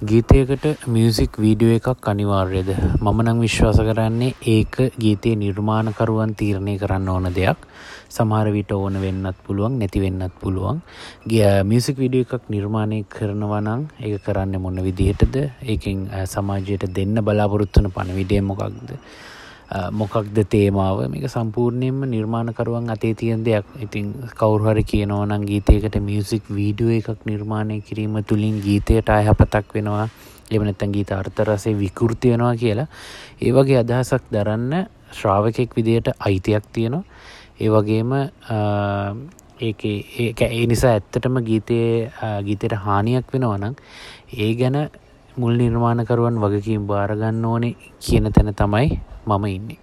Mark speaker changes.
Speaker 1: ගීතයකට music video එකක් අනිවාර්යද? මම නම් විශ්වාස කරන්නේ ඒක ගීතයේ නිර්මාණකරුවන් තීරණය කරන්න ඕන දෙයක්. සමහර විට ඕන වෙන්නත් පුළුවන්, නැති වෙන්නත් පුළුවන්. මියුසික් වීඩියෝ එකක් නිර්මාණය කරනවා නම් ඒක කරන්නේ මොන විදිහටද? ඒකෙන් සමාජයට දෙන්න බලාපොරොත්තු වන පණිවිඩය මොකක්ද? මොකක්ද තේමාව? මේක සම්පූර්ණයෙන්ම නිර්මාණකරුවන් අතේ තියෙන දෙයක්. ඉතින් කවුරු හරි කියනවා නම් ගීතයකට මියුසික් වීඩියෝ එකක් නිර්මාණය කිරීම තුළින් ගීතයට අයහපතක් වෙනවා, එහෙම නැත්නම් ගීත අර්ථ රසය විකෘති වෙනවා කියලා, ඒ වගේ අදහසක් දරන්න ශ්‍රාවකෙක් විදියට අයිතියක් තියෙනවා. ඒ වගේම ඒකේ ඒක ඒ නිසා ඇත්තටම ගීතයට හානියක් වෙනවා නම් ඒ ගැන මුල් නිර්මාණකරුවන් වගකීම් බාර ගන්න ඕනේ කියන තැන තමයි මම ඉන්නේ.